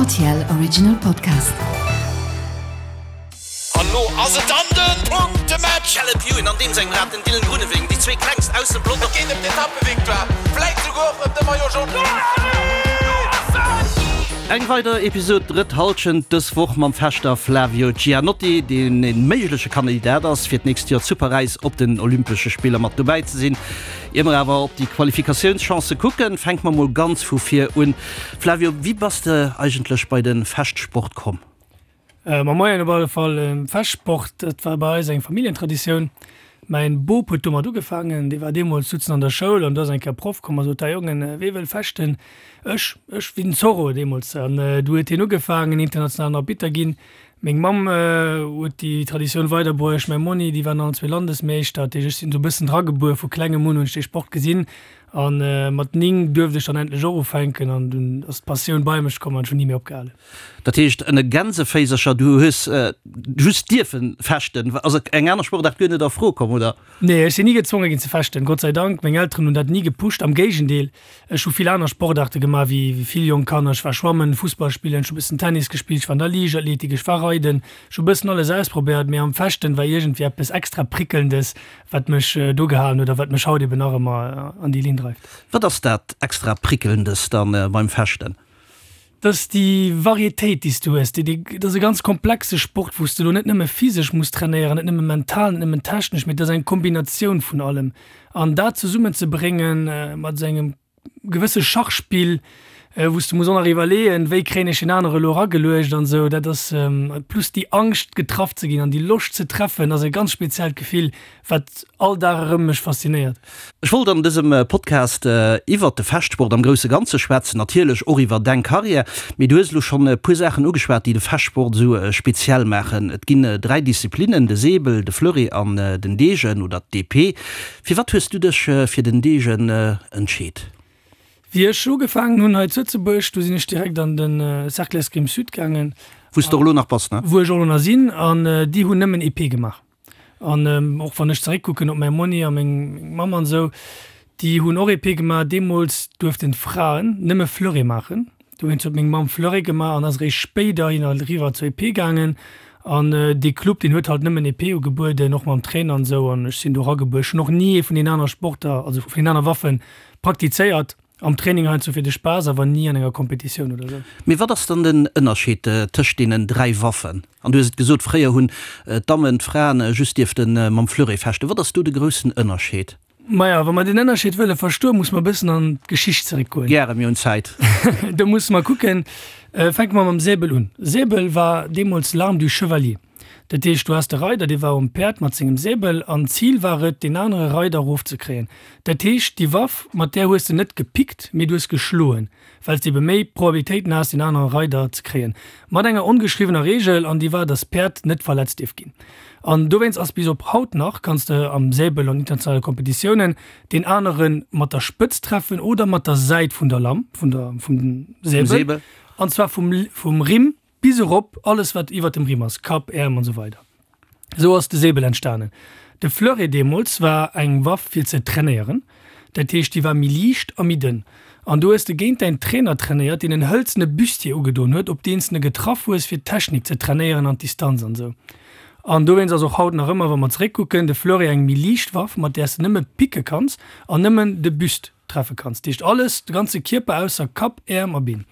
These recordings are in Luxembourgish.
RTL Original Podcast. An lo ass et dann den Punktematch! Caleb Ewan an deem sengem Rad den Dylan Groenewegen, déi zwee klengst aus dem Pelotong. Et geet ëm d'Etappevictoire, vläit souguer och ëm de Maillot Jaune. Eng weider Episod Drëtt Hallschent, dës Woch mam Fechter Flavio Gianotti, deen e méigleche Kandidat ass, fir d'nächst Joer zu Paräis op den Olympesche Spiller mat dobäi ze sinn. Ier mer awer op déi Qualifikatiounschancë kucken, fänke mer mol ganz vu vir un. Flavio, wéi bass de eigentlech bei de Fechtsport komm? Ma moien op alle Fall. Fechtsport, dat war bei eis eng Familljentraditioun. Mäin Bop huet domat ugefaangen, dee war deemools souzen an der Schoul an do ass eng Kéier Proff komm a sot, Hei Jongen, wee wëll fechten? Ech, ech, wéi den Zorro deemools. An du huet hien ugefaangen, internationalen Arbitter ginn. Meng Mamm huet déi Traditioun weiderbruecht, mäi Monni, déi waren allen zwee Landesmeeschter. Dat heescht, ech sinn esou e bëssen dragebuer, vu klengem un hunn ech dee Sport gesinn a mat 9 duerft ech dann endlech och ufänken an dunn ass d'Passioun bei mech komm an ech hunn ni méi opgehalen. Dat heescht, ënne Gänseféisercher, du hues just dierfe fechten, ass eng aner Sportaart guer net a Fro komm, oder? Nee, ech sinn ni gezwonge ginn ze fechten, Gott sei Dank. Meng Elteren hunn dat ni gepusht, am Géigendeel, ech hu vill aner Sportaarte gemaach wéi vill jonk Kanner. Ech war schwammen, Fussball spillen, ech hu bëssen Tennis gespillt, ech war an der Liichtathletik, ech war reiden, ech hu bëssen alles ausprobéiert, mee am Fechten war iergendwéi eppes extra Prickelndes, wat mech do gehalen huet a wat mech haut eben nach ëmmer an déi Linn dreift. Wat ass dat extra Prickelndes dann beim Fechten? Dat ass déi Varietéit, déi s du hues. Déi, dat ass e ganz komplexe Sport, wou s de elo net nëmme physesch muss trainéieren, net nëmme mental, net nëmmen technesch, mee et ass eng Kombinatioun vun allem. An dat zesummenzebréngen mat esou engem gewësse Schachspill, wou s de muss och nach iwwerleeën, wéi kréien ech deen anere elo erageluecht an esou, dat ass, plus déi Angscht getraff ze ginn an déi Loscht ze treffen, ass e ganz speziellt Gefill, wat all Dag erëm mech faszinéiert. Ech wollt an dësem Podcast iwwert de Fechtsport am grousse Ganze schwätzen, natierlech och iwwer deng Karriär, mee du hues elo schonn e puer Saachen ugeschwat, déi de Fechtsport esou speziell maachen. Et ginn 3 Disziplinnen, de Säbel, de Fleuret an den Degen oder d'Epée. Firwat hues du dech fir den Degen entscheet? Wéi ech ugefaangen hunn hei zu Lëtzebuerg, du sinn ech direkt an de Cercle Escrime Sud gaangen. Wou s de och elo nach bass, ne? Wou ech och elo nach sinn, an déi hunn nëmmen Epée gemaach. An och wann ech zeréckkucken op mäi Monni a meng Mamm an esou, déi hunn och Epée gemaach. Deemools duerften d'Fraen nëmme Fleuret maachen. Dowéinst huet meng Mamm Fleuret gemaach an ass eréischt spéiderhin eriwwer zur Epée gaangen. An dee Club, deen huet halt nëmmen Epée ugebueden, och mam Trainer an esou. An ech sinn do eragebuer. Ech hunn och ni ee vun deenen anere Sporter, also vun deenen anere Waffen praktizéiert. Am Training heiansdo fir de Spaass, awer ni an enger Kompetitioun oder sou. Mee wat ass dann den Ënnerscheed tëscht deenen 3 Waffen? An du hues et gesot, fréier hunn d'Dammen, d'Fraen just dierfte mam Fleuret fechten. Wat ass do de groussen Ënnerscheed? Maja, wa mer den Ënnerscheed wëlle verstoen, musse mer e bëssen an d'Geschicht zeréckgoen. Gäre, mir hunn Zäit. Do musse mer kucken, fänke mer mam Säbel un. Säbel war deemools l'arme du chevalier. Dat heescht, du has de Reider, dee war um Päerd mat sengem Säbel an d'Zil war et, deen anere Reider erofzekréien. Dat heescht, déi Waff, mat där hues de net gepickt, mee du hues geschloen, well s de ebe méi Probabilitéiten has, deen anere Reider ze kréien. Mat enger ongeschriwwener Reegel, an déi war, dass d'Päerd net verletzt dierf ginn. An dowéinst ass bis op haut nach, kanns de am Säbel an internationale Kompetitiounen deen anere mat der Spëtz treffen oder mat der Säit vun der Lamm, vun der, vum Säbel, an zwar vum, vum Rimm Bis erop, alles wat iwwert dem Rimm ass, Kapp, Äerm an esou weider. Esou ass de Säbel entstanen. De Fleuret deemools war eng Waff fir ze trainéieren, dat heescht déi war méi liicht a méi dënn. An do hues de géint däin Trainer trainéiert, deen en hëlzene Bustier ugedoen huet, op deen s de getraff hues fir d'Technik ze trainéieren an d'Distanz an esou. An dowéinst ass och haut nach ëmmer, wa mer zeréckkucken, de Fleuret eng méi liicht Waff, mat där s de nëmme picke kanns an nëmmen de Buste. Treffe kanns. Dat heescht alles, de ganze Kierper ausser Kapp, Äerm a Been.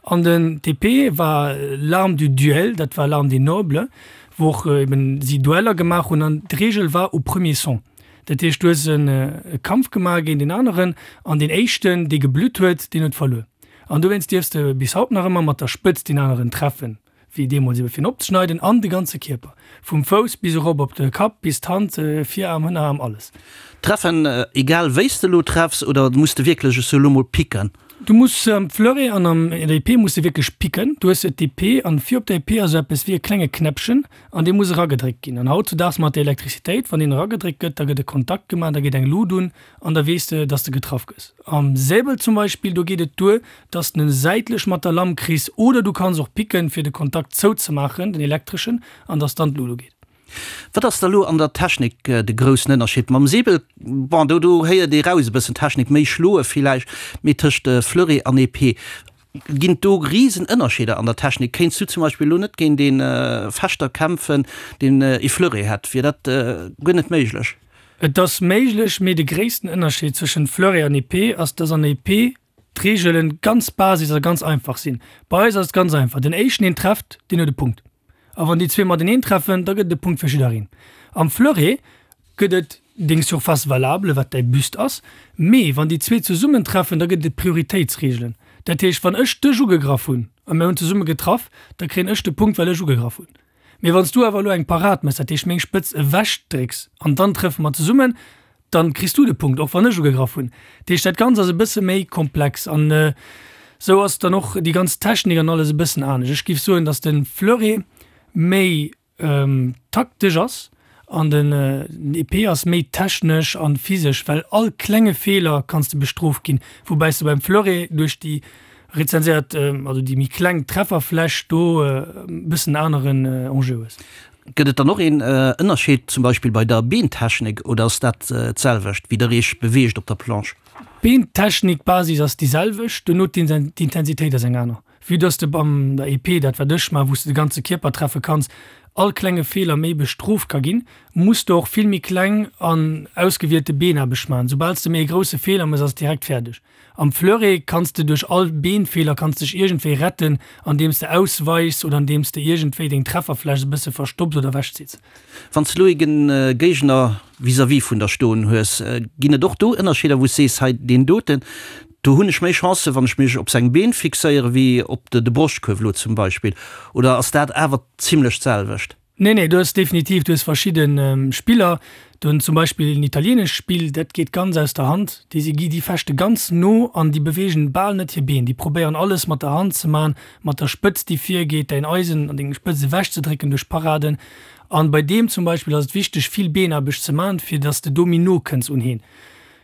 An den TP war l'arme du duel, dat war l'arme des nobles, wou och eben si Dueller gemaach hunn an d'Reegel war au premier son. Dat heescht du hues e Kampf gemaach géint een aneren an deen éischten dee geblutt huet, deen huet verluer. An dowéinst dierfs de bis haut nach ëmmer mat der Spëtz deen aneren treffen. Wéi deemools ebe fir en opzeschneiden, an de ganze Kierper, vum Fouss bis erop op de Kapp, bis d'Hand, Viraarm, Hënnerarm, alles. Treffen, egal wéi s de elo treffs, oder muss de wierklech, ech soe lo mol, picken? Du muss am Fleuret an an der Epée muss de wierklech picken. Du hues d'Epée an vir op der Epée ass esou eppes wéi e klenge Knäppchen an dee muss eragedréckt ginn. An hautzudaags mat der Elektrizitéit, wann deen eragedréckt gëtt, da gëtt e Kontakt gemaach, da geet eng Lut un an da weess de, dass de getraff gëss. Am Säbel zum Beispill, do geet et duer, dass de en säitlech mat der Lamm kriss oder du kanns och picken, fir de Kontakt zouzemaachen, den elektreschen, an dass dann d'Lut ugeet. Wat ass da lo an der Technik de groussen Ënnerscheed? Mam Säbel, bon, do do héiert ee raus e bëssen Technik, méi schloe villäicht, mee tëscht Fleuret an Epée. Ginn et do risen Ënnerscheeder an der Technik? Kéints du zum Beispill elo net géint ee Fechter kämpfen, deen ee Fleuret hätt? Wier dat guer net méiglech? Et ass méiglech, mee de gréissten Ënnerscheed zwëschen Fleuret an Épée ass, dass an Épée d'Reegelen ganz basis a ganz einfach sinn. Bei eis ass et ganz einfach, den éischten deen trefft, deen huet e Punkt. A wann déi zwee mateneen treffen, da gëtt et e Punkt fir jiddereen. Am Fleuret gëtt et deng Surface valable, wat däi Buste ass, mee wann déi zwee zesummen treffen, da gëtt et Prioritéitsreegelen. Dat heescht, wann ech dech ugegraff hunn a mir hunn zesumme getraff, da kréien ech de Punkt, well ech ugegraff hunn. Mee wann s du awer elo eng Parad méchs, dat heescht meng Spëtz ewechdrécks an dann treffe mer zesummen, dann kriss du de Punkt, och wann ech ugegraff hunn. Dat heescht, dat Ganzt ass e bësse méi komplex an esou ass dann och déi ganz Technik an alles e bëssen anescht. Ech géif soen, datt de Fleuret méi taktesch ass an den Épée ass méi technesch an physesch, well all klenge Feeler kanns de bestrooft ginn, woubäis de beim Fleuret duerch déi rezenséiert, also déi méi kleng Trefferfläch do e bëssen aneren Enjeu hues. Gëtt et dann och een Ënnerscheed zum Beispill bei der Beentechnik oder ass dat d'selwecht wéi der iech beweegt op der Planche? D'Beentechnik, d'Basis ass déi selwecht, duerno d'Intensitéit ass eng aner. Vue dass de beim der Épée, dat wat ech man, wou s de de ganze Kierper treffe kanns, all klenge Feeler méi bestrooft ka ginn, muss de och vill méi kleng an ausgewielte Beenaarbecht man. Soubal s de méi e grousse Feeler mëss, ass et direkt fäerdeg. Am Fleuret kanns de duerch all Beenfeeler kanns dech iergendwéi retten, andeems de ausweichs oder andeems de iergendwéi deng Trefferfläch e bësse verstopps oder ewechzitts. Wann s de elo ee Géigner vis-à-vis vun der stoen hues, ginn et och do Ënnerscheeder, wou s sees, hei deen doten, do hunn ech méi Chancen, wann ech mech op seng Been fixéiere wéi op de Broschtkuerf elo zum Beispill, oder ass dat awer zimlech d'selwecht? Nee, nee, du hues definitiv, du hues verschidde Spiller, do hunn zum Beispill en italieenescht Spill, dat geet ganz aus der Hand, déi si gi, déi fechte ganz no an déi beweegen bal net hir Been, déi probéieren alles mat der Hand ze man, mat der Spëtzt déi virgeet, däin Eisen an deng Spëtzt ewechzedrécken duerch Paraden. An bei deem zum Beispill ass et wichteg vill Beenaarbecht ze man, fir dass de do méi no kënns un heen.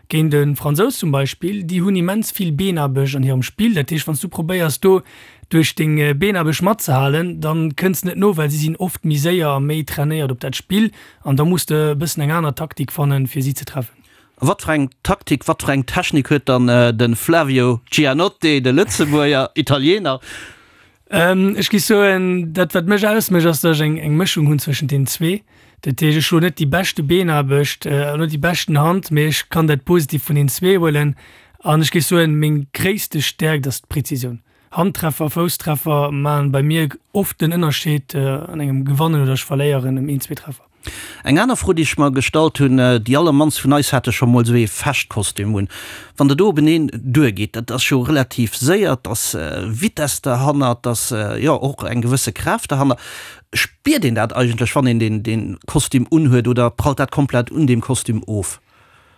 Géint e Fransous zum Beispill, déi hunn immens vill Beenaarbecht an hirem Spill. Dat heescht, wann s du probéiers do duerch deng Beenaarbecht matzehalen, da kënns de net no, well si sinn oft méi séier a méi trainéiert op dat Spill an da muss de e bëssen eng aner Taktik fannen, fir si ze treffen. A wat fir eng Taktik, wat fir eng Technik huet dann de Flavio Giannotti, de Lëtzebuerger Italiener? Ech géif soen, dat wat mech ausmécht, ass, datt ech eng eng Mëschung hunn zwëschent deenen zwee. Dat heescht, ech hunn net déi beschte Beenaarbecht an net déi beschten Hand, mee ech kann dat Positivt vun deenen zwee huelen. An ech géif soen, meng gréisste Stäerkt ass d'Präzisioun. Handtreffer, Fousstreffer maachen bei mir oft den Ënnerscheed an engem Gewannen oder ech verléieren ëm een, zwee Treffer. Eng aner Fro, déi ech mer gestallt hunn, Déi allermannst vun eis hate scho mol esou ee Fechtkostüm un. Wann der do openeen duergeet, dat ass jo relativ séier, et ass Vitess derhannert, et ass jo och eng gewësse Kraaft derhanner. Spiert een dat eigentlech, wann een dee Kostüm unhuet oder prallt dat komplett un deem Kostüm of?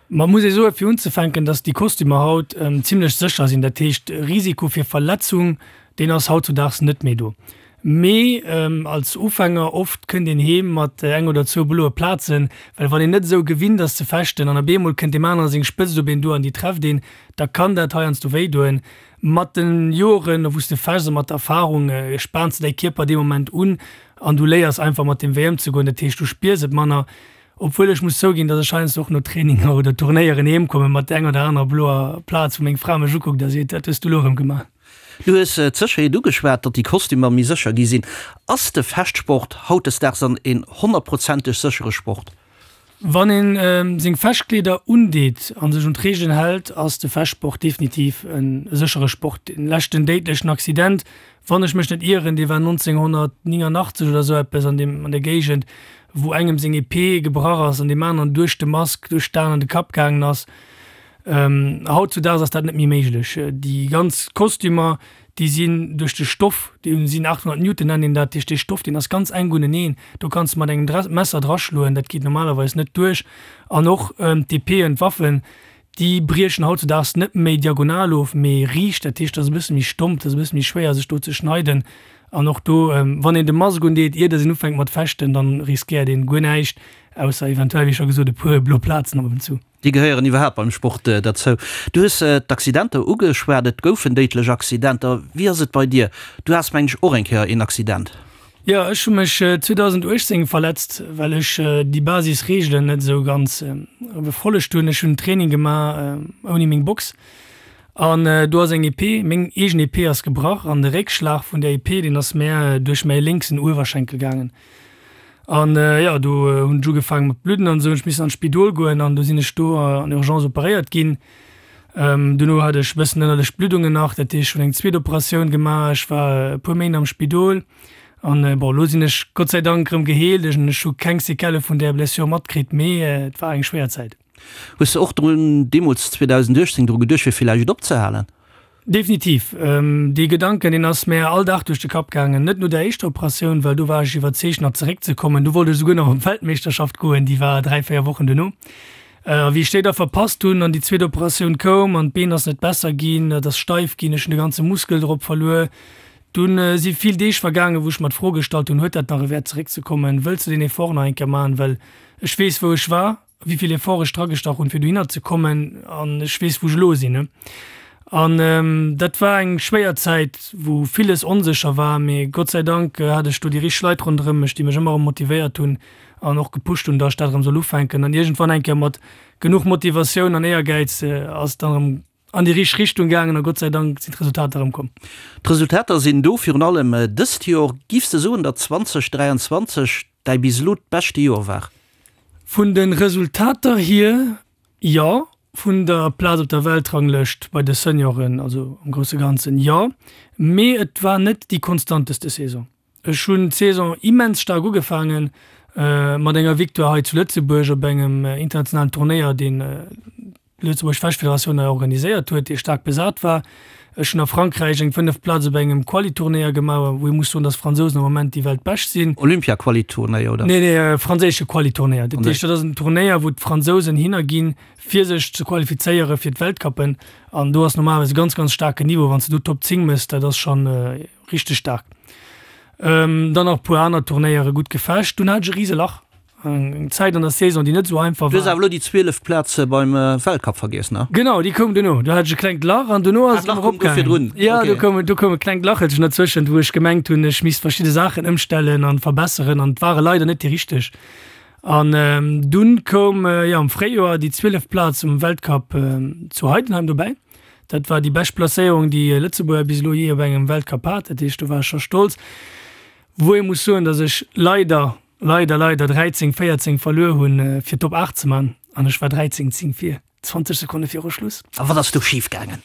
Ma muss ee soen, fir unzefänken, dass déi Kostümer haut zimlech sécher sinn. Dat heescht, Risiko fir Verletzung, deen ass hautzudaags net méi do. Mee als Ufänger, oft kënnt een heem mat eng oder zwou bloe Plazen, well wann een net esou gewinnt ass ze fechten an op eemol kënnt deem anere seng Spëtzt op een duer an déi trefft een, da kann dat heiansdo wéi doen. Mat de Joren, wou s de fechts a mat der Erfarung, spaans de däi Kierper dee Moment un an du léiers einfach mat deem Wéi ëmzegoen. Dat heescht, du spiers et manner. Obwuel ech muss zouginn, dass ech heiansdo och no Traininger oder Turnéieren heem komme mat der enger oder anerer bloer Plaz, wou meng Fra mech ukuckt a seet, Wat hues du elo erëm gemaach? Du hues d'Sécherheet ugeschwat, datt déi Kostümer méi sécher gi sinn. Ass de Fechtsport hautdesdaags dann een honnertprozenteg séchere Sport? Wann een seng Fechtkleeder undeet a sech un d'Reegelen hält, ass de Fechtsport definitiv e séchere Sport. Den leschten déidlechen Accident Wann ech mech net ieren, dee war 1989 oder esou eppes an deem, an der Géigend, wou engem seng Epée gebrach ass an deem aneren duerch de Mask, duerch d'Aen an de Kapp gaangen ass. Hautzudaags ass dat net méi méiglech. Déi ganz Kostümer, déi sinn duerch de Stoff, déi sinn 800 Newton nennt een dat, duerch dee Stoff, deen ass ganz enk uneneen, do kanns de mat engem Messer draschloen, dat geet normalerweis net duerch. An och d'Epéeën, d'Waffen, Déi briechen hautzudaags net méi diagonal of, mee riicht. Dat heescht, dat ass e bësse méi stomp, dat ass e bësse méi schwéier, sech do ze schneiden. An och do, wann een de Mask undeet, ier dass een ufänkt mat fechten, dann riskéiert een guer näischt, ausser eventuell, wéi scho gesot, e puer blo Plazen ab und zu. Déi gehéieren iwwerhaapt beim Sport derzou. Du hues d'Accidenter ugeschwat, et goufen déidlech Accidenter. Wéi ass et bei dir? Du has, mengen ech, och eng Kéier een Accident. Jo, ech hu mech 2018 verletzt, well ech déi Basisreegelen net esou ganz befollegt hunn. Ech hunn Training gemaach ouni meng Box. An do ass eng Épée, meng eegen Épée ass gebrach an de Réckschlag vun där Épée, deen ass mär duerch mäi lénksen Uewerschenkel gaangen. An jo, do hunn ech ugefaange mat bludden an esou, hunn ech missen an d'Spidol goen an do sinn ech do an Urgence operéiert ginn. Dono hat ech e bëssen ënnerlech Bluddungen nach, dat heescht ech hunn eng zweet Operatioun gemaach, ech war e puer Méint am Spidol an bon, elo sinn ech Gott sei Dank erëm geheelt, ech hu keng Séquellë vun där Blessure matkritt, mee et war eng schwéier Zäit. Hues de och drun, deemools 2018, dru geduecht fir villäicht opzehalen? Definitiv. Dee Gedanken, deen ass mär all Dag duerch de Kapp gaangen. Net no der éischter Operatioun, well do war ech iwwerzeegt nach zeréckzekommen. Do wollt ech esouguer nach op d'Weltmeeschterschaft goen, déi war 3, 4 Wochen duerno. A wéi ech déi da verpasst hunn an déi zweet Operatioun koum an d'Been ass net besser ginn, et ass steif ginn, ech hunn de ganze Muskel drop verluer, dunn si vill Deeg vergaangen, wou ech mer d'Fro gestallt hunn, huet dat nach e Wäert zeréckzekommen, wëlls de deen Effort nach eng Kéier maachen, well ech weess wou ech war. wéi vill Effort ech dragestach hunn, fir dohinner ze kommen, an ech weess, wou ech elo sinn. An dat war eng schwéier Zäit, wou villes onsécher war, mee Gott sei Dank hat ech do déi richteg Leit ronderëm mech, déi mech ëmmer erëm motivéiert hunn an och gepusht hunn, datt ech dat erëm soll ufänken. An iergendwann eng Kéier mat genuch Motivatioun an Éiergäiz ass et dann erëm an déi richteg Richtung gaangen a Gott sei Dank sinn d'Resultater erëm komm. D'Resultater sinn do, virun allem dëst Joer. Giffs de soen, datt 2023 däi bis elo d'beschte Joer war? Vun de Resultater hier jo, vun der Plaz op der Weltranglëscht bei de Senioren, also am grousse Ganzen jo, mee et war net déi konstanteste Saison. Ech hunn d'Saison immens staark ugefaangen, mat enger Victoire hei zu Lëtzebuerg op engem internationalen Turnéier, deen d'Lëtzebuerg Fechtfederatioun hei organiséiert huet, dee staark besat war. Ech hunn a Frankräich eng fënneft Plaz op engem Quali-Turnéier gemaach, wou ee muss soen, datt d'Fransousen am Moment déi Weltbescht sinn. Olympia-Quali-Turnéier, oder? Nee, nee, franséische Quali-Turnéier. Dat heescht, dat ass en Turnéier, wou d'Fransousen hinner ginn, fir sech ze qualifizéiere fir d'Weltcuppen. An do ass normalerweis e ganz, ganz staarken Niveau. Wann s de do Top 10 méchs, dat ass schonn Richteg staark. Dann nach e puer aner Turnéiere gutt gefecht. Dunn hat ech e rise Lach. Eng Zäit an der Saison, déi net esou einfach war. Du hues awer elo déi 12 Plaz beim Weltcup vergiess, ne? Genau, déi koum duerno. Do hat ech e klengt Lach an duerno ass et erëm eropgaangen. Jo, do koum, do koum e klengt Lachelchen derzwëschent, wou ech gemengt hunn, ech misst verschidde Saachen ëmstellen an verbesseren an et ware leider net déi richteg. An dunn koum, jo, am Fréijoer déi 12 Plaz um Weltcup zu Heidenheim dobäi. Dat war déi bescht Placéierung, déi e Lëtzebuerger bis elo jee op engem Weltcup hat. Dat heescht, do war ech scho stolz. Wou ee muss soen, datt ech leider, leider, leider 13, 14 verluer hunn, fir d'Top 8 ze man. An ech war 13, 10 vir, 20 Sekonne viru Schluss. A wat ass do schif gaangen?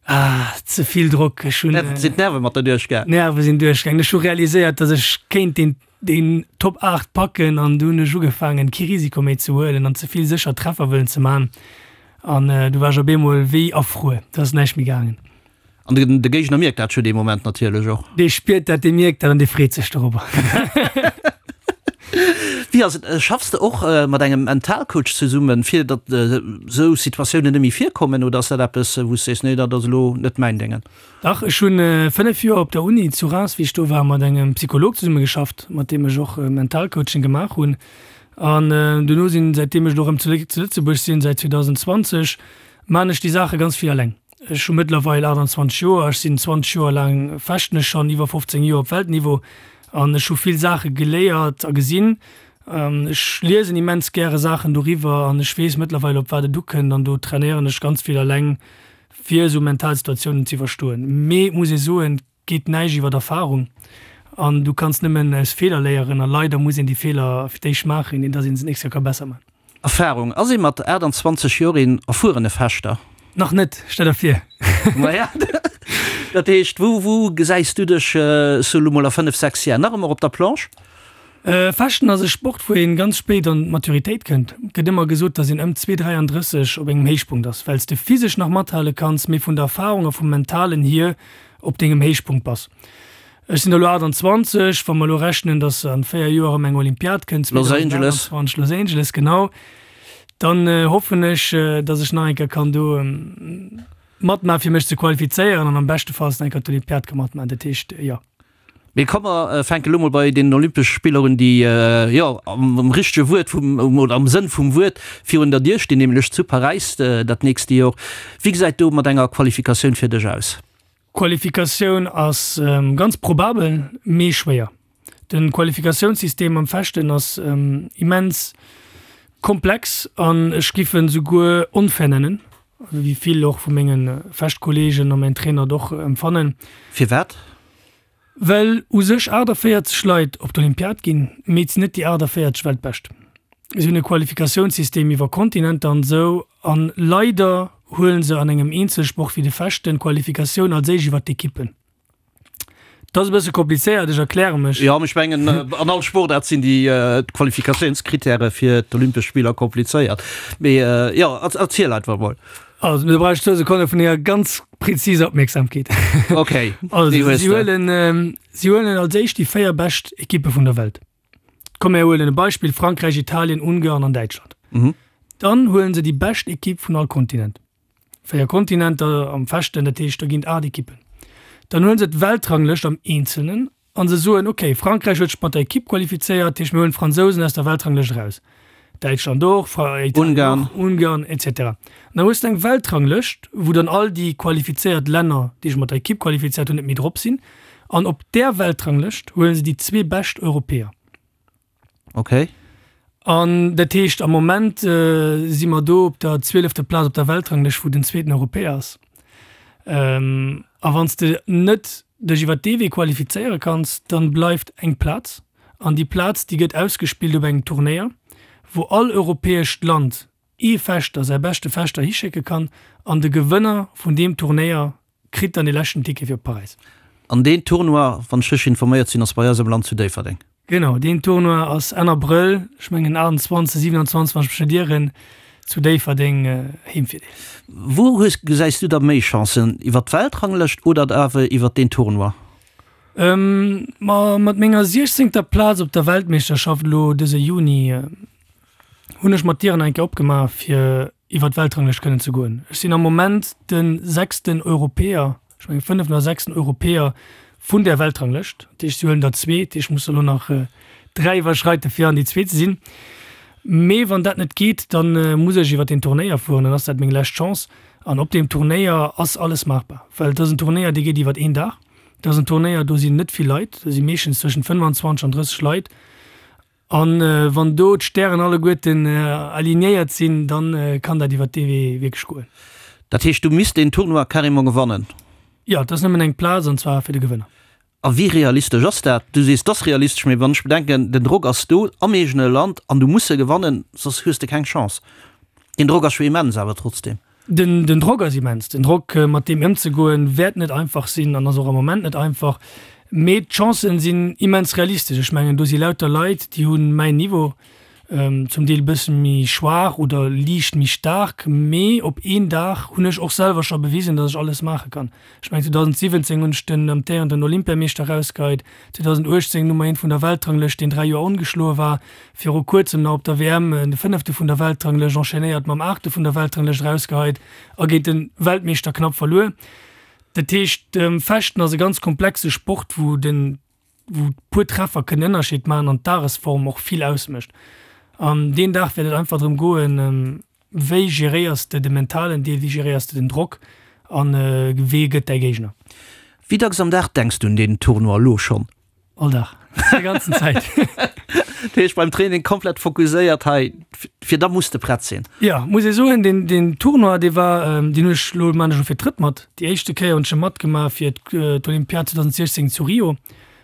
Ah, ze vill Drock. Ech hunn. Sinn d'Nerve mat der duerchgaangen? D'Nerve sinn duerchgaangen. Ech hu realiséiert, datt ech kéint deen deen Top 8 packen an du hunn ech ugefaangen kee Risiko méi ze huelen an ze vill sécher Treffer wëllen ze man an du war ech op eemol wéi erfruer, do ass näischt méi gaangen. An de Géigner mierkt dat jo dee Moment natierlech och. Dee spiert dat, dee mierkt dat an dee freet sech dorobber. Wéi ass et, schaffs de och mat engem Mentalcoach zesummen, fir datt esou Situatiounen net méi virkommen oder ass dat eppes wou s sees, nee dat ass elo net mäin Déngen? Dach, ech hunn 5 Joer op der Uni zu Reims, wéi ech do war, mat engem Psycholog zesumme geschafft, mat deem ech och Mentalcoaching gemaach hunn. An duerno sinn, säitdeem ech elo erëm zu Lëtzebuerg sinn, säit 2020, maachen ech déi Saache ganz vill eleng. Ech hu mëttlerweil 28 Joer, ech sinn 20 Joer laang, fechten ech schonn, iwwer 15 Joer op Weltniveau an ech hu vill Saache geléiert a gesinn. Ech liesen immens gäre Saachen doriwwer an ech weess mëttlerweil, op wat et ukënnt an do trainéieren ech ganz vill eleng fir esou mental Situatiounen ze iwwerstoen. Mee et muss ee soen, et geet näischt iwwer Erfarung an du kanns nëmmen aus Feeler léieren a leider muss een déi Feeler fir d'éischt maachen, ier dass een se d'nächst Kéier ka besser maachen. Erfarung, Ass ee mat 28 Joer een erfuerene Fechter? Nach net, stell der vir. Maja, dat heescht, wou, wou gesäis du dech sou elo mol a 5, 6 Jar? Nach ëmmer op der Planche? Fechten ass e Sport, wou een ganz spéit an d'Maturitéit kënnt. Et gëtt ëmmer gesot, dass een ëm zwee 33 op engem Héichpunkt ass, well s de physesch nach mathale kanns, mee vun der Erfarung a vum Mentalen hier op dengem Héichpunkt bass. Ech sinn elo 28, wa mer elo rechnen, dass an 4 Joer erëm eng Olympiad kënnt, 2028, Los Angeles, genau, dann hoffen ech, dass ech nach eng Kéier kann do matmaachen, fir mech ze qualifizéieren an am beschtefalls nach eng Kéier d'Olympiad ka matmaachen. Dat heescht, jo. Mee komm mer fänke lo mol bei deenen Olympesche Spiller un, déi, jo, am richtege Wuert vum, oder am Sënn vum Wuert virun der Dier stinn, nämlech zu Paräis dat nächste Jor. Wéi gesäit do mat enger Qualifikatioun fir dech aus? Qualifikatioun ass ganz probabel, mee schwéier. De Qualifikatiounssystem am Fechten ass immens komplex an ech giff en souguer onfair nennen. wéi vill och vu menge Fechtkolleegen a mäin Trainer et och empfannen. Firwat? Well u sech 48 Leit op d'Olympiad ginn, mee et sinn net déi 48 Weltbescht. Si hunn e Qualifikatiounssystem iwwer Kontinenter an esou, an leider huelen se an engem Eenzelsport wéi de Fechten d'Qualifikatioun als éischt iwwer d'Ekippen. Dat ass e bësse komplizéiert, ech erkläre mech. Jo, mee ech mengen, an all Sportaart sinn déi Qualifikatiounskrittäre fir d'Olympesch Spiller komplizéiert. Mee jo, erziel einfach mol. Also, do brauch ech zwou Sekonne vun denger ganz präziser Opmierksamkeet. Okay, Also, déi hues si de. huelen, si huelen als éischt déi 4 bescht Ekippe vun der Welt. Komm mir huelen e Beispill, Frankräich, Italien, Ungarn an Däitschland. Mhm. Dann huelen se déi bescht Ekipp vun all Kontinent. 4 Kontinenter am Fechten, dat heescht, do ginn et 8 Ekippen. Dann huelen se d'Weltranglëscht am Eenzelnen An se soen, ok, Frankräich huet sech mat der Ekipp qualifizéiert, dat heescht mir huelen d'Fransousen aus der Weltranglëscht eraus, Däitschland och, Italien och, Ungarn etc. An dann hues de eng Weltranglëscht, wou dann all déi qualifizéiert Länner, déi sech mat der Ekipp qualifizéiert hunn, net méi drop sinn. An op där Weltranglëscht huele se déi zwee bescht Europäer. Ok. An dat heescht, am Moment si mer do op der zwielefter Plaz op der Weltranglëscht, wou den zweeten Europäer ass. A wann s de net dech iwwer dee Wee qualifizéiere kanns, dann bleift eng Plaz. An déi Plaz, déi gëtt ausgespillt op engem Turnéier, wou all europäescht Land ee Fechter, säi beschte Fechter hischécke kann. An de Gewënner vun deem Turnéier kritt dann dee leschten Ticket fir op Paräis. An deen Tournoi, wann ech richteg informéiert sinn, ass bei eis am Land zu Déifferdeng. Genau, deen Tournoi ass Enn Abrëll, ech mengen 28, 27, wann ech mech net ieren, zu Déifferdeng, Heemvirdeel. Wou hues, gesäis du da méi Chancen, iwwer d'Weltranglëscht oder awer iwwer deen Tournoi? Ma mat menger siechzéngter Plaz op der Weltmeeschterschaft elo dëse Juni hunn ech mer d'Dieren eng Kéier opgemaach fir iwwer d'Weltranglëscht kënnen ze goen. Ech sinn am Moment de sechsten Europäer, ech mengen fënneften oder sechsten Europäer vun där Weltranglëscht. Dat heescht, si huelen der zwee, dat heescht, ech muss der elo nach dräi iwwerschreiten, fir an déi zwee ze sinn. Mee wann dat net geet, da muss ech iwwer deen Turnéier fueren, dann ass dat meng lescht Chance. An op deem Turnéier ass alles maachbar, well et ass en Turnéier, dee geet iwwer een Dag. Et ass en Turnéier, do sinn net vill Leit, do si meeschtens zwëschent 25 an 30 Leit. An wann do d'Stären alleguerten alignéiert sinn, dann kann dat iwwer dee Wee wierklech goen. Dat heescht, du misst deen Tournoi carrément gewannen? Jo, et ass nëmmen eng Plaz, an zwar fir de Gewënner. A wéi realistesch ass dat? Du sees, et ass realistesch, mee wann ech bedenken, den Drock ass do am eegene Land an du muss se gewannen, soss hues de keng Chance. Deen Drock ass jo immens awer trotzdem. Den Drock ass immens. Den Drock, mat deem ëmzegoen, wäert net einfach sinn an ass och am Moment net einfach. Mee d'Chancen sinn immens realistesch. Ech mengen, do si lauter Leit, déi hu mäin Niveau, zum Deel e bësse méi schwaach oder liicht méi staark. Mee op een Dag hunn ech och selwer scho bewisen, datt ech alles maache kann. Ech mengen, 2017 hunn ech den amtéierenden Olympiameeschter erausgeheit, 2018 Nummer eent vun der Weltranglëscht, deen 3 Joer ongeschloe war, viru kuerzem nach op der WM de Fënnefte vun der Weltranglëscht, enchaînéiert mam Aachte vun der Weltranglëscht erausgeheit a géint de Weltmeeschter knapp verluer. Dat heescht, Fechten ass e ganz komplexe Sport, wou den wou puer Treffer kënnen Ënnerscheed maachen an d'Dagesform och vill ausmécht. An deen Dag wäert et einfach drëm goen, wéi geréiers de de mentalen Deel, wéi geréiers de den Drock an wee gëtt däi Géigner. Wéi dacks am Dag denks du un deen Tournoi elo schonn? All Dag, déi ganzen Zäit. Dat heescht beim Training komplett fokuséiert hei, fir da muss de prett sinn? Jo, muss ee soen, deen, deen Tournoi, dee war, deen hunn ech elo, maan ech elo fir d'drëtt mat. Déi éischte Kéier hunn ech e matgemaach fir d'Olympiad 2016 zu Rio,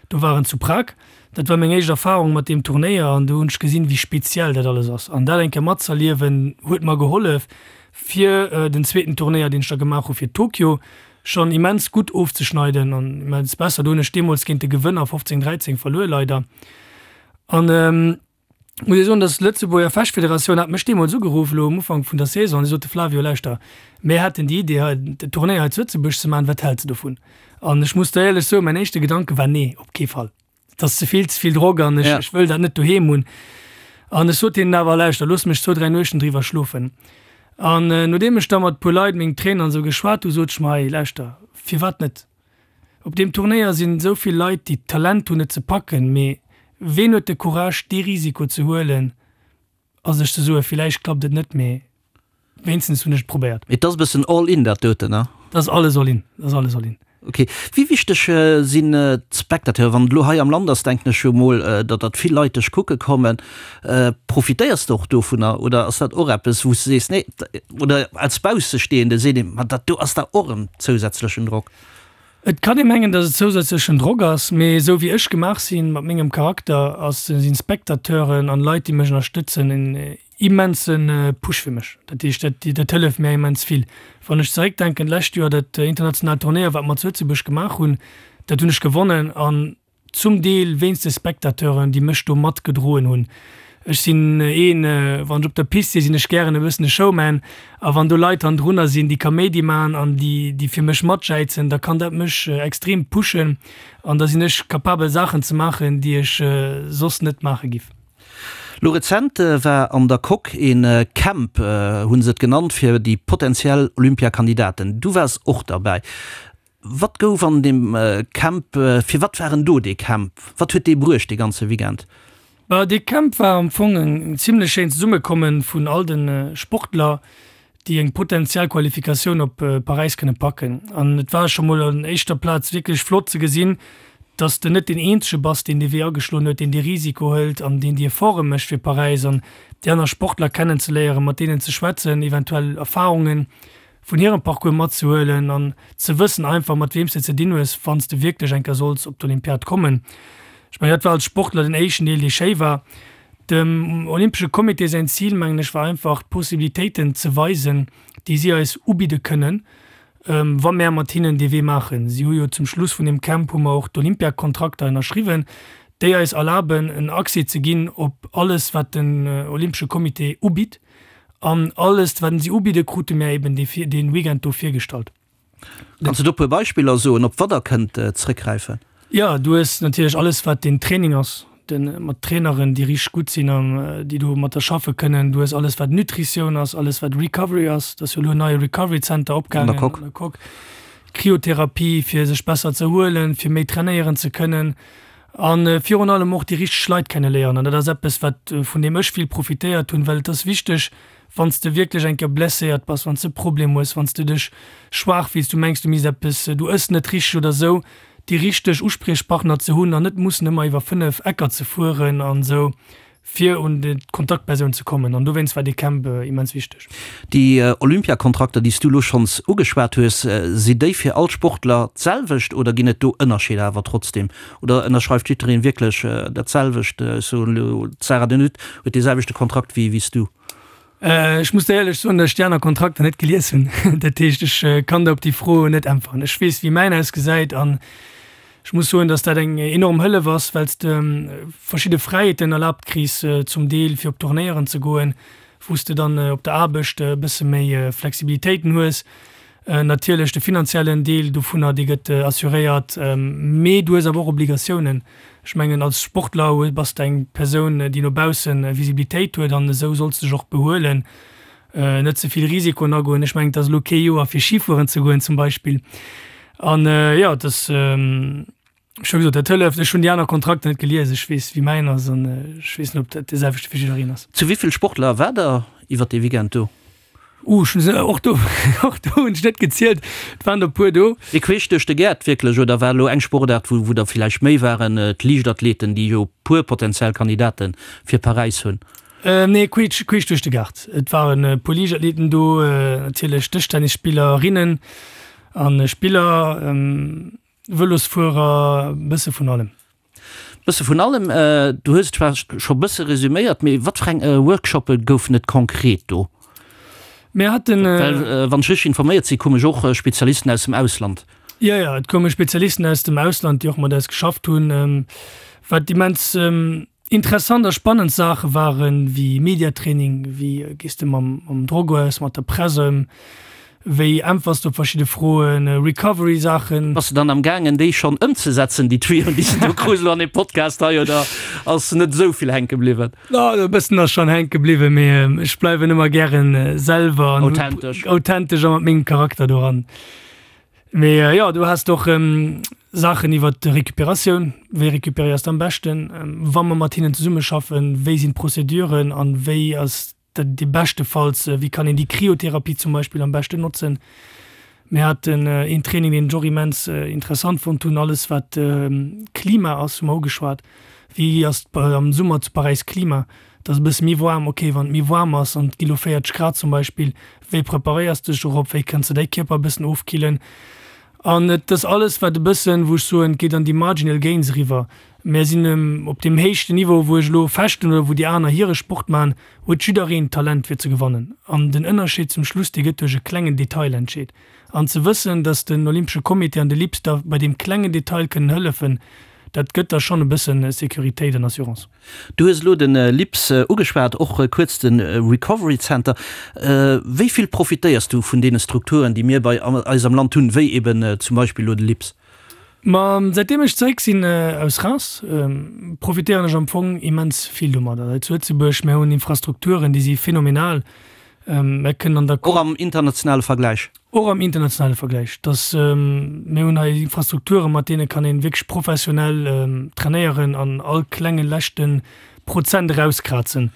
do war en zu Prag. Dat war meng éischt Erfarung mat deem Turnéier an do hunn ech gesinn, wéi speziell dat alles ass. An dat eng Kéier matzerliewen, huet mer gehollef fir den zweeten Turnéier, deen ech da gemaach hu fir Tokio, schonn immens gutt ofzeschneiden an immens besser. Do hunn ech deemools géint de Gewënner 15, 13 verluer leider. An muss ee soen, dass d'Lëtzebuerger Fechtfederatioun hat mech deemools ugeruff, elo um Ufank vun der Saison, an si sote, Flavio, lauschter, mir hätten déi Idee hei, den Turnéier hei zu Lëtzebuerg ze maachen, wat häls de dovun? An ech muss der éierlech soen, mäin éischte Gedanke war, Nee, op kee Fall. Et ass ze vill, ze vill Drock an ech, ech wëll dat net doheem hunn. An ech sot hinnen awer, Lauschter, looss mech zwou, dräi Nuechten driwwer schlofen. An nodeem ech da mat e puer Leit, mengem Trainer an esou geschwat hu, sot ech mer, Hey, lauschter, firwat net? Op deem Turnéier sinn esou vill Leit, déi d'Talent hunn, et ze packen, mee ween huet de Courage, dee Risiko ze huelen a sech ze soen, Villäicht klappt et net, mee wéinstens hunn ech et probéiert. Mee et ass e bëssen all in, dat doten, ne? Dat ass alles all in, dat ass alles all in. Ok. Wéi wichteg sinn d'Spectateuren? Wann et elo hei am Land ass, denken ech jo mol, datt datt vill Leit dech kucke kommen. Profitéiers de och dovunner oder ass dat och eppes, wou s de sees, nee, oder als Baussestehende seet een, ma dat do ass da och en zousätzlechen Drock? Et kann ee mengen, datt et zousätzlechen Drock ass, mee esou wéi ech gemaach sinn, mat mengem Charakter, ass sinn Spectateuren an Leit, déi mech ënnerstëtzen, en immense Push fir mech. Dat heescht, dat dat hëlleft mär immens vill. Wann ech zeréckdenken, d'lescht Joer dat internationaalt Turnéier, wat mer zu Lëtzebuerg gemaach hunn, dat hunn ech gewonnen an zum Deel wéinst de Spectateuren, déi mech do matgedroen hunn. Ech sinn een, wann ech op der Pist sinn, sinn ech gären e bëssen e Showman a wann do Leit hannendrunner sinn, déi Kaméidi maachen an déi déi fir mech matjäizen, da kann dat mech extrem pushen an da sinn ech capabel Saachen ze maachen, déi ech soss net maache giff. Lo rezent war an der Coque een Camp, hunn se et genannt, fir déi potentiell Olympiakandidaten. Du waars och derbäi. Wat gouf an deem Camp, fir wat war en do dee Camp? Wat huet dee bruecht dee ganze Weekend? Bah, dee Camp war am Fong en zimlech schéint Zesummekommen vun all de Sportler, déi eng potentiell Qualifikatioun op Paräis kënne packen. An et war scho mol an éischter Plaz wierklech flott ze gesinn, dass de net deen eenzege bass, deen dee Wee ageschloen huet, deen dee Risiko hëlt an deen déi Efforte mécht fir Paräis an déi aner Sportler kennenzeléieren, mat deenen ze schwätzen, eventuell Erfarunge vun hirem Parcours matzehuelen an ze wëssen einfach, mat weem s de ze dinn hues, wann s de wierklech eng Kéier solls op d'Olympiad kommen. Ech mengen, dat war als Sportler den éischten Deel, dee schéi war. Dem Olympesche Comité säin Zil, mengen ech, war einfach d'Possibilitéiten ze weisen, déi si eis ubidde kënnen, wa mär mat hinnen dee Wee maachen. Si hu jo zum Schluss vun deem Camp hu mer och d'Olympiakontrakter ënnerschriwwen, déi eis erlaben, en Accès ze ginn op alles, wat den Olympesche Comité ubitt. An alles, wat si ubidde, krute mär eben dee Weekend do virgestallt. Kanns du do e puer Beispiller soen, op wat der kënnt zrëckgräifen? Jo, du hues natierlech alles, wat den Training ass, de mat Traineren, déi richteg gutt sinn an déi do mat der schaffe kënnen. Du hues alles, wat Nutritioun ass, alles, wat Recovery ass. Et ass jo elo en neie Recovery Center opgaangen an der Coque. Kryotherapie, fir sech besser ze erhuelen, fir méi trainéieren ze kënnen a virun allem och déi richteg Leit kenneléieren. An dat ass eppes, wat, vun deem ech vill profitéiert hunn, well et ass wichteg, Wann s de wierklech eng Kéier blesséiert bass, wann s de Problem hues, wann s de dech schwaach fills, du mengs du misst eppes, du ëss net richteg oder sou, déi richteg Uspriechpartner ze hunn an net mussen ëmmer iwwer 5 Ecker ze fueren an sou, fir un d'Kontaktpersoun ze kommen. An dowéinst war dee Camp immens wichteg. Déi Olympiakontrakter, déi s du elo schonns ugeschwat hues, si déi fir all Sportler d'selwecht oder ginn et do Ënnerscheeder awer trotzdeem? Oder ënnerschreift jiddereen wierklech dat selwecht? Ech soen elo, d'Sarah De Nutte huet dee selwechte Kontrakt wéi s du. Ech muss der éierlech soen, datt ech déi aner Kontrakter net gelies hunn. Dat heescht, ech kann der op déi Fro net äntweren. Ech weess, wéi mäin ausgesäit an ech muss soen, datt dat eng enorm Hëllef ass, well s de verschidde Fräiheeten erlaabt kriss, zum Deel fir op Tournéieren ze goen, wou s de dann op der Aarbecht e bësse méi Flexibilitéiten hues. Natierlech de finanziellen Deel dovunner, dee gëtt assuréiert, mee du hues awer och Obligatiounen. Ech mengen, als Sportler bass de eng Persoun, déi no bausse Visibilitéit huet an esou solls de dech och behuelen, net ze vill Risikoen agoen. Ech mengen, et ass elo kee Joer fir Schifueren ze goen zum Beispill. An jo, et ass. Ech hu gesot, dat hëlleft. Ech hunn déi aner Kontrakter net gelies. Ech weess, wéi mäin ass an ech weess net, ob dat dee selwechte fir jiddereen ass. Zu wéi vill Sportler waart der iwwer dee Weekend do? Uh, ech hunn se, och do, och do hunn ech net gezielt. Et waren der e puer do. Mee queesch duerch de Gaart wierklech, oder war elo eng Sportaart, wou, wou der villäicht méi waren, d'Liichtathleten, déi jo e puer potentiell Kandidate fir Paräis hunn? Nee, queesch, queesch duerch de Gaart. Et waren e puer Liichtathleten do, natierlech Dëschtennisspillerinnen a Spiller. Vëlosfuerer, bësse vun allem. Bësse vun allem. Du hues et zwar scho bësse resuméiert, mee wat fir eng Workshoppe goufen et konkret do? Mir haten. Well wann ech richteg informéiert sinn, koume jo och Spezialisten aus dem Ausland. Jo, jo, et koume Spezialisten aus dem Ausland, déi och mat eis geschafft hunn, wat immens Interessant a spannend Saache waren, wéi Mediatraining, wéi gees de mam mam Drock aus, mat der Press ëm, wéi äntwers de op verschidde Froen, Recovery Saachen. Bass de dann am gaangen déi schonn ëmzesetzen, déi Tuyauxen déi s de do krus elo an deem Podcast hei, oder ass net esou vill hänke bliwwen? No, e bëssen ass schonn hänke bliwwen, mee ech bleiwen ëmmer gären selwer an Authentesch. authentesch a mat mengem Charakter doran. Mee jo, du has och Saachen iwwer d'Recuperatioun, wéi recuperéiers de am beschten, wa mer mat hinnen zesummeschaffen, wéi sinn d'Prozeduren an wéi ass dat déi beschtefalls, wéi kann een déi Kryotherapie zum Beispill am beschten notzen. Mir haten een Training, deen ech och immens interessant fonnt hunn, alles wat Klima ass, hu mer ugeschwat. Wéi ass et am Summer zu Paräis Klima? Et ass e bësse méi waarm. Ok, wann et méi waarm ass an et gi lo 40 Grad zum Beispill, wéi preparéiers de dech dorop? Wéi kënns de däi Kierper e bëssen ofkillen? An et ass alles wat e bëssen, wou ech soen, et geet an déi marginal gains eriwwer. Mär sinn op deem héichten Niveau, wou ech elo fechten oder wou déi aner hire Sport maachen, huet jiddereen d'Talent fir ze gewannen. An den Ënnerscheed zum Schluss, dee gëtt duerch e klengen Detail entscheet. An ze wëssen, datt den Olympesche Comité an de LIPS der bei deem klengen Detail kënnen hëllefen, dat gëtt der schonn e bësse Sécuritéit an Assurance. Du hues elo de LIPS ugeschwat, och kuerz de Recovery Center. Wéi vill profitéiers du vun deene Strukturen, déi mir bei eis am Land hunn, wéi eben zum Beispill elo de LIPS? Ma säitdeem ech zeréck sinn aus Reims, profitéieren ech am Fong immens vill domadder. Hei zu Lëtzebuerg, mir hunn Infrastrukturen, déi si phänomenal. Mir kënnen an der. Och am internationale Vergläich? Och am internationale Vergläich. Dass, mir hunn hei Infrastrukturen, mat deene kann ee wierklech professionell trainéieren an all klenge leschte Prozent erauskrazen.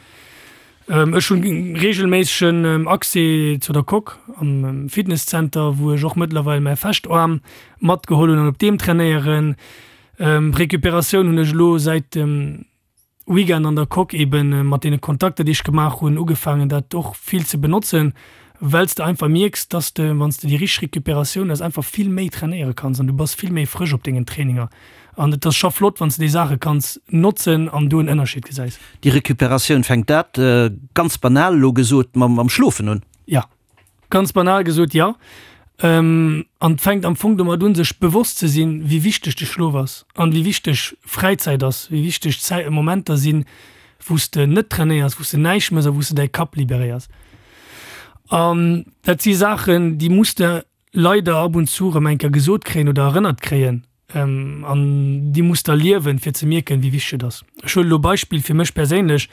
Ech hunn reegelméissegen Accès zu der Coque am Fitnesszenter, wou ech och mëttlerweil mäi Fechtaarm matgeholl hunn an op deem trainéieren. Recuperatioun hunn ech elo säit dem Weekend an der Coque eben mat deene Kontakter déi ech gemaach hunn ugefaangen dat och vill ze benotzen, well s de einfach mierks, dass de wann s de déi richteg Recuperatioun hues einfach vill méi trainéiere kanns an du bass vill méi frësch op dengen Traininger. An et ass scho flott, wann s de déi Saache kanns notzen an do en Ënnerscheed gesäis. Déi Recuperatioun, fänkt dat, ganz banal elo gesot, mam Schlofen un? Jo, ganz banal gesot, jo. An et fänkt am Fong domat un, sech bewosst ze sinn, wéi wichteg de Schlof ass an wéi wichteg Fräizäit ass, wéi wichteg Zäit, Momenter sinn, wou s de net trainéiers, wou s de näischt méchs a wou s de däi Kapp liberéiers. An dat si Saachen, déi muss de leider ab und zu erëm eng Kéier gesot kréien oder erënnert kréien an déi muss der liewen, fir ze mierken, wéi wichteg et ass. Ech huelen elo Beispill fir mech perséinlech,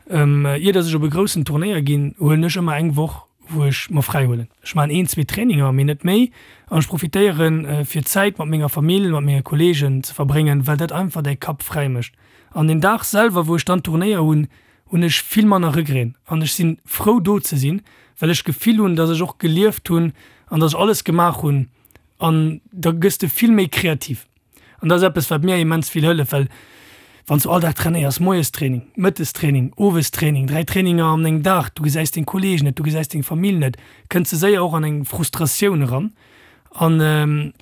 Ier dass ech op e groussen Turnéier ginn, huelen ech ëmmer eng Woch, wou ech mer fräi huelen. Ech maachen een, zwee Traininger, mee net méi an ech profitéieren, fir Zäit mat menger Famill, mat menge Kolleegen ze verbréngen, well dat einfach däi Kapp fräi mécht. An den Dag selwer, wou ech dann Turnéier hunn, hunn ech vill manner Regreten an ech sinn frou do ze sinn, well ech d'Gefill hunn, dass ech och gelieft hunn an dass ech alles gemaach hunn an da gëss de vill méi kreativ an dat ass eppes wat mir immens vill hëlleft, well wann s du all Dag trainéiers, moies Training, mëttes Training, owes Training, 3 Traininger an engem Dag, du gesäis deng Kollegen net, du gesäis deng Famill net, kënns de séier och an eng Frustratioun eran an.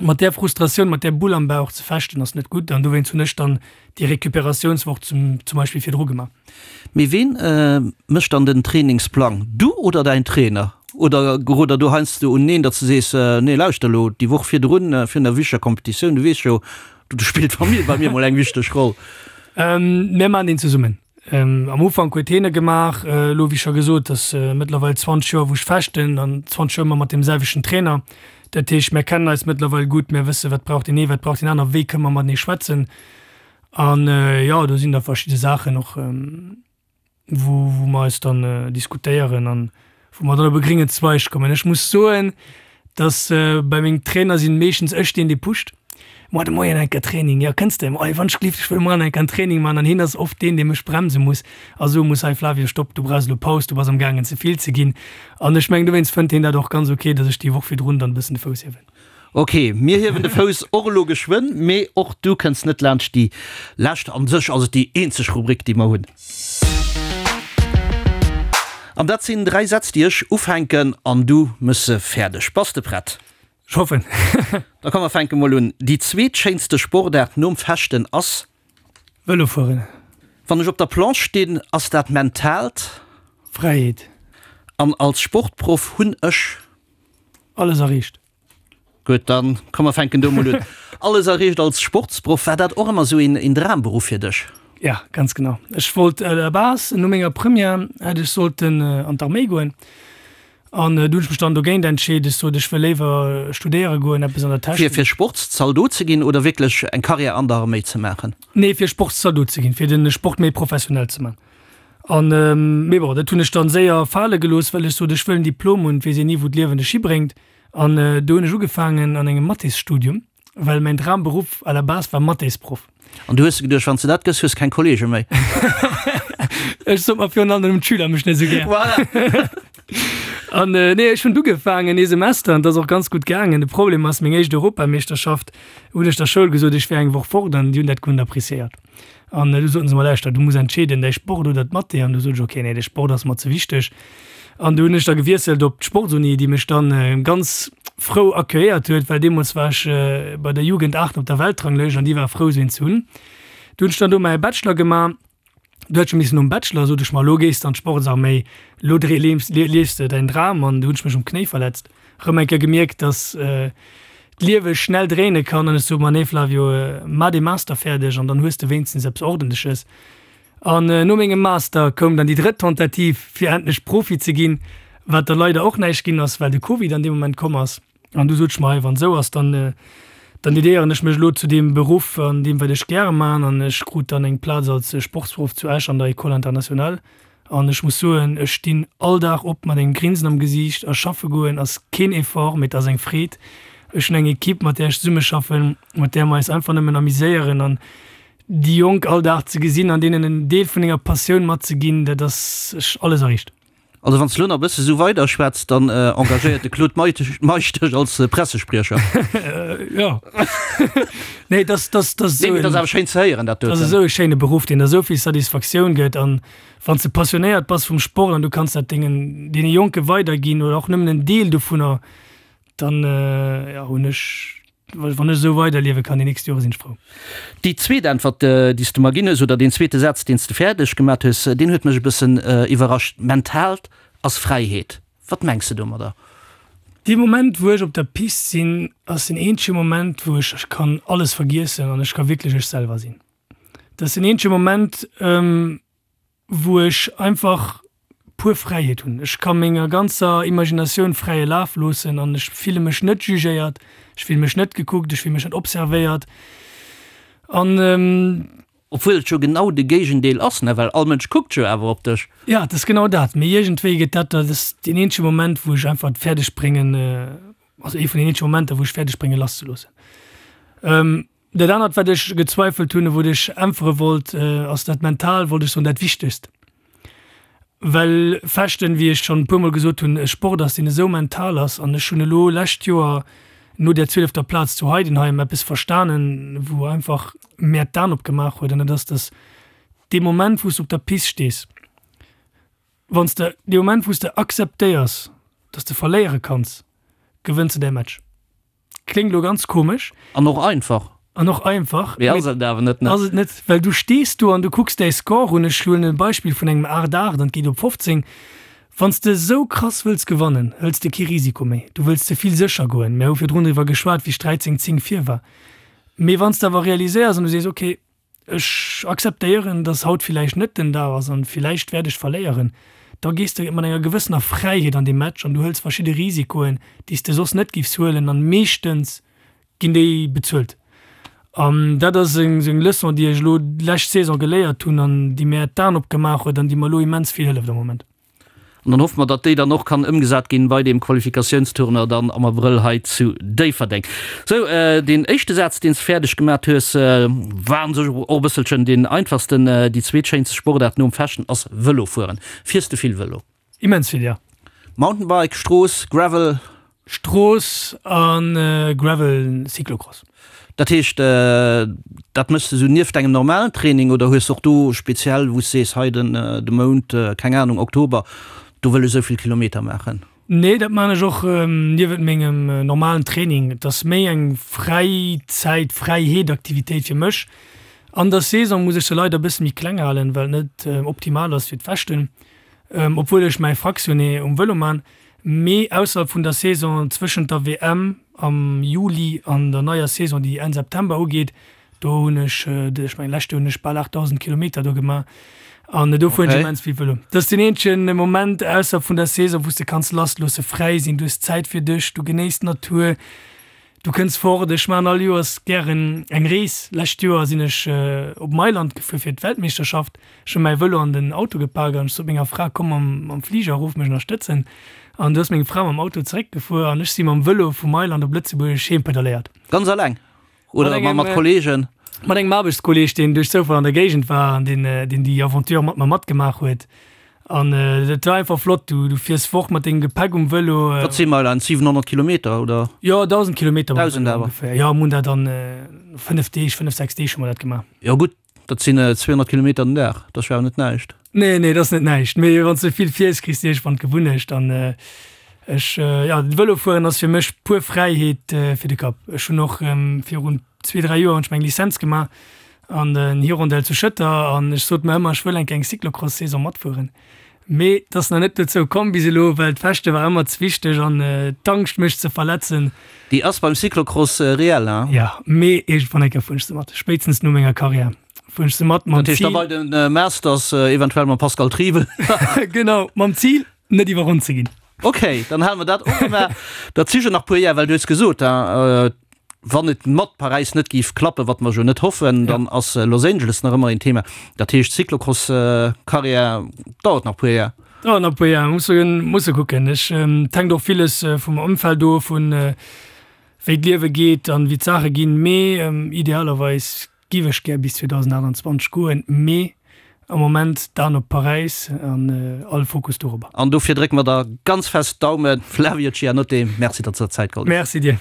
Mat där Frustratioun, mat där Bull am Bauch ze fechten ass net gutt an dowéinst hunn ech dann déi Recuperatiounswoch zum zum Beispill virdru gemaach. Mee ween mécht dann den Trainingsplang? Du oder däin Trainer? Oder gerot der do heiansdo uneneen, datt s de sees, nee lauschter elo, déi Woch virdrun, virun der wichteger Competitioun, du weess jo, do spillt d'Famill bei mir mol eng wichteg Roll? Mir maachen deen zesummen. Am Ufank huet hien e gemaach, elo wéi scho gesot, ass mëttlerweil 20 Joer wou ech fechten an 20 Joer ëmmer mat deem selwechten Trainer. Dat heescht mär kennen eis mëttlerweil gutt, mär wësse wat brauch deen ee, wat brauch deen aner, wéi kënne mer matenee schwätzen. An jo do sinn da verschidde Saachen och wou wou mer eis dann diskutéieren an wou mer dann op e gréngen Zweig kommen. Ech muss soen, dass bei mengem Trainer sinn meeschtens ech deen dee pusht, Moar de Moien enker Training, jo kënns de? Oi wann ech gelift, ech wëll moar enker en Training man an hien ass oft deen dee mech bremse muss a soe muss, hei Flavio stopp, du brauchs elo Paus, du bass am gaangen ze vill ze ginn an ech mengen dowéinst fënnt hien dat och ganz ok, dass ech déi Woch virdrun dann e bëssen de Fouss hiewen. Ok, mir hiewen de Fouss och elo geschwënn, mee och du kënns net laanscht déi lescht, an sech ass et déi eenzeg Rubrik déi mer hunn. An dat sinn 3 Sätz, déi ech ufänken an du mëss se fäerdeg. Bass de prett? Ech hoffen. Da komm mer fänke mol un. Déi zweetschéinste Sportaart nom Fechten ass? Vëlo fueren. Wann ech op der Planche stinn, ass dat mentaalt? Fräiheet. An als Sportproff hunn ech? Alles erreecht. Gutt, dann komm mer fänken do mol un. Alles erreecht als Sportsproff, war dat och ëmmer esou een Dramberuff fir dech? Ja, ganz genau. Ech wollt à la base, no menger Première hätt ech sollten an d'Arméi goen an du hunn ech mech dann dogéint entscheet. Ech sot, ech wëll léiwer studéiere goen, eppes an der Technik. Fir Sportszaldot ze ginn oder wierklech eng Karriär an der Arméi ze maachen? Nee, fir Sportszaldot ze ginn, fir de Sport méi professionell ze man. An, mee bon, dat hunn ech dann séier fale gelooss, well ech sot, ech wëll en Diplom hunn, et weess een ni wou d'Liewen dech hibréngt. An do hunn ech ugefaangen an engem Mathésstudium, well mäin Dramberuff à la base war Mathésproff. An du hues geduecht, wann s de dat gëss, hues keng Kollege méi? Ech sot mer virun allem, d'Schüler mech net esou gär. Voilà. An nee, ech hunn ugefaangen ee Semester an et ass och ganz gutt gaangen. De Problem ass, meng éischt Europameeschterschaft hunn ech der Schoul gesot, ech wär eng Woch fort an déi hunn dat guer net appréciéiert. An du soten se mer, lauschter, du muss entscheeden, däi Sport oder d'Mathé. An du sot ech, okay, nee, de Sport ass mer ze wichteg. An du hunn ech da gewiesselt op d'Sportsuni, déi mech dann ganz frou accueilléiert huet, well deemools war ech bei der Jugend 8 op der Weltranglëscht an déi war frou, sou een ze hunn. Du hunn ech dann do mäi Bachelor gemaach. Du hätt ech missen nom Bachelor, sot ech mer, elo gees de an d'Sportsarméi, elo liefs de däin Dram. An du hunn ech mech um Knéi verletzt, rëm eng Kéier gemierkt, dass d'Liewe schnell dréine kann. An ech sot mer, nee Flavio, mar dee Master fäerdeg an dann hues de wéinstens eppes Ordentleches. An no mengem Master koum dann déi drëtt Tentative, fir endlech Profi ze ginn, wat da leider och näischt ginn ass, well de Covid an deem Moment komm ass. An du sot ech mer, hei, wann esou ass, dann, dann dedéieren ech mech elo zu deem Beruff an deem, wat ech gäre maachen. An ech krut dann eng Plaz als Sportsproff zu Esch an der École internationale. An ech muss soen, ech stinn all Dag op mat engem Grinsen am Gesiicht a schaffe goen ass keen Effort, mee et ass eng Freed. Ech hunn eng Equipe, mat där ech zesummeschaffen, mat där mer eis einfach nëmmen amuséieren. An déi Jonk all Dag ze gesinn an deenen en Deel vun denger Passioun matzeginn, dat ass, ech alles erreecht. Also wann s de lo nach e bësse sou weider schwätz, dann engagéiert de Claude Meisch dech als Pressespriecher. Jo. Nee, dass, dass, dass Nee, mee dat ass awer schéin ze héieren, dat doten. Dat ass esou e schéine Beruff, deen der esou vill Satisfaktioun gëtt. An wann s de passionéiert bass vum Sport an du kanns dat dengen, deene Jonke weiderginn oder och nëmmen en Deel dovunner, dann, jo, hunn ech Wann ech esou weiderliewe kann déi nächst Jore sinn ech frou. Déi zweet Äntwert, déi s de mer ginn hues, oder deen zweete Saz, deen s de fäerdeg gemat hues, deen huet mech e bëssen iwwerrascht, Mentaalt ass Fräiheet. Wat mengs de domadder? Dee Moment, wou ech op der Pist sinn, ass den eenzege Moment, wou ech kann alles vergiessen an ech ka wierklech ech selwer sinn. Dat ass den eenzege Moment, wou ech einfach pur Fräiheet hunn. Ech ka menger ganzer Imaginatioun fräie Laf loossen an ech fille mech net jugéiert, ech fille mech net gekuckt, ech fille mech net observéiert an. Obwuel et jo genau de Géigendeel ass, ne, well all Mënsch kuckt jo awer op dech. Jo, et ass genau dat, mee iergendwéi gëtt dat, dat ass deen eenzege Moment, wou ech einfach et fäerdeg bréngen, also ee vun den eenzege Momenter, wou ech fäerdeg bréngen lasszeloossen. Dat anert, wat ech gezweifelt hunn, wou ech äntwere wollt, ass dat mental, wollt ech soen, dat Wichtegst. Well Fechten, wéi ech schonn e puermol gesot hunn, e Sport ass, deen esou mental ass. An ech hunn elo lescht Joer no där zwielefter Plaz zu Heidenheim eppes verstanen, wou einfach mär d'Aen opgemaach huet, an dat ass, dass dee Moment, wou s de op der Pist stees, wann s de, dee Moment, wou s de akzeptéiers, dass de verléiere kanns, gewënns de däi Match. Kléngt elo ganz komesch. An och einfach. An och einfach. Mee ass et awer net, ne? Ass et net, well du stees do an du kucks däi Score un. Ech huelen e Beispill vun engem 8, 8 an et geet op 15. Wann s de esou krass wëlls gewannen, hëls de kee Risiko méi. Du wëlls ze vill sécher goen. Mir hu virdrun driwwer geschwat, wéi 13, 10 vir war. Mee wann s de awer realiséiers an du sees, okay, Ech akzeptéieren, dass haut villäicht net den Dag ass an villäicht wäert ech verléieren. Da gees de mat enger gewëssener Fräiheet an dee Match an du hëls verschidde Risikoen, déi s de soss net giffs huelen an meeschtens ginn déi bezuelt. An dat ass eng sou eng Leçon, déi ech elo d'lescht Saison geléiert hunn an déi mär d'Aen opgemaach huet an déi mer elo immens vill hëlleft am Moment. An dann hoffe mer, datt déi dann och kann ëmgesat ginn bei deem Qualifikatiounstournoi dann am Abrëll hei zu Déifferdeng. Sou, deen éischte Saz, deen s de fäerdeg gemat hues, war an sech och e bësselchen deen einfachsten. Déi zweetschéinste Sportaart nom Fechten ass Vëlofueren. Fiers de vill Vëlo? Immens vill, jo. Mountainbike, Strooss, Gravel? Strooss a Gravel, Cyclocross. Dat heescht, dat méchs de sou nieft engem normalen Training oder hues de och do speziell, wou s sees, hei den de Mount, keng Anung, Oktober, do wëll ech esou vill Kilometer maachen? Nee, dat maan ech och niewent mengem normalen Training. Et ass méi eng Fräizäit, Fräiheetaktivitéit fir mech. An der Saison muss ech se leider e bësse méi kleng halen, well et net optimal ass fir d'Fechten, obwuel ech mäi Fractionné um Vëlo maan. Mee ausserhalb vun der Saison, zwëschent der WM am Juli an der neier Saison, déi Enn September ugeet, do hunn ech, ech mengen lescht Joer hunn ech bal 8.000 Kilometer do gemaach an do fueren ech immens vill Vëlo. Dat ass deen eenzegen Moment ausserhalb vun der Saison, wou s de kanns lassloosse, fräi sinn, du hues Zäit fir dech, du genéiss d'Natur. Du kënns fort. Ech maachen all Joers gären eng Rees. Lescht Joer sinn ech op Mailand gefuer fir d'Weltmeeschterschaft. Ech hu mäi Vëlo an den Auto gepak an ech sot menger Fra, komm mam Fliger erof mech ënnerstëtzen. An du ass meng Fra mam Auto zeréckgefuer an ech si mam Vëlo vu Mailand op Lëtzebuerg heem pedaléiert. Ganz alleng oder mat Kolleegen? Mat engem Aarbechtskolleeg, deen duerch Zoufall an der Géigend war an deen déi Aventure mat mer matgemaach huet. An dat war einfach flott. Du, du fiers fort mat dengem Gepäck um Vëlo. Wat si Meilen? 700 Kilometer oder? Jo, 1.000 Kilometer mam Vëlo ongeféier. Jo, mir hunn dat an 5 Deeg, 5, 6 Deeg hu mer dat gemaach. Jo gutt, dat sinn 200 Kilometer den Dag, dat ass jo awer net näischt. Nee, nee, dat ass net näischt. Mee wann s de vill fiers, kriss de iergendwann d'Gewunnecht. An ech, jo, Vëlofueren ass fir mech puer Fräiheet fir de Kapp. Ech hunn och virun zwee, dräi Joer hunn ech meng Lizenz gemaach an den Hirondelle zu Schëtter an ech sot mer ëmmer, ech wëll eng Kéier eng Cyclocross-Saison matfueren. Mee et ass nach net dozou komm bis elo, well d'Fechte war ëmmer ze wichteg an d'Angscht mech ze verletzen. Déi ass beim Cyclocross reell, hein? Jo, mee iergendwann eng Kéier fueren ech se mat, spéitstens no menger Karriär fueren ech se mat, mam Zil. Dat heescht da bei de Masters, eventuell mam Pascal Triebel. Genau, mam Zil net iwwerronnt ze ginn. Ok, dann hale mer dat och ëmmer. Dat si jo nach puer Jar, well du hues gesot, wann et mat Paräis net géif klappen, wat mer jo net hoffen, dann ass Los Angeles nach ëmmer een Thema. Dat heescht, Cyclocross-Karriär dauert nach puer Jar. Dauert nach puer Jar, musse musse kucken. Ech, et hänkt och villes vum Ëmfeld of, vun wéi d'Liewe geet an wéi d'Saache ginn. Mee idealerweis Giff ech gär bis 2028 goen, mee am Moment d'Aan op Paräis an all Fokus dorobber. An dofir drécke mer der ganz fest d'Daumen. Flavio Cianotte, Merci, datt s de der Zäit geholl hues. Merci dir.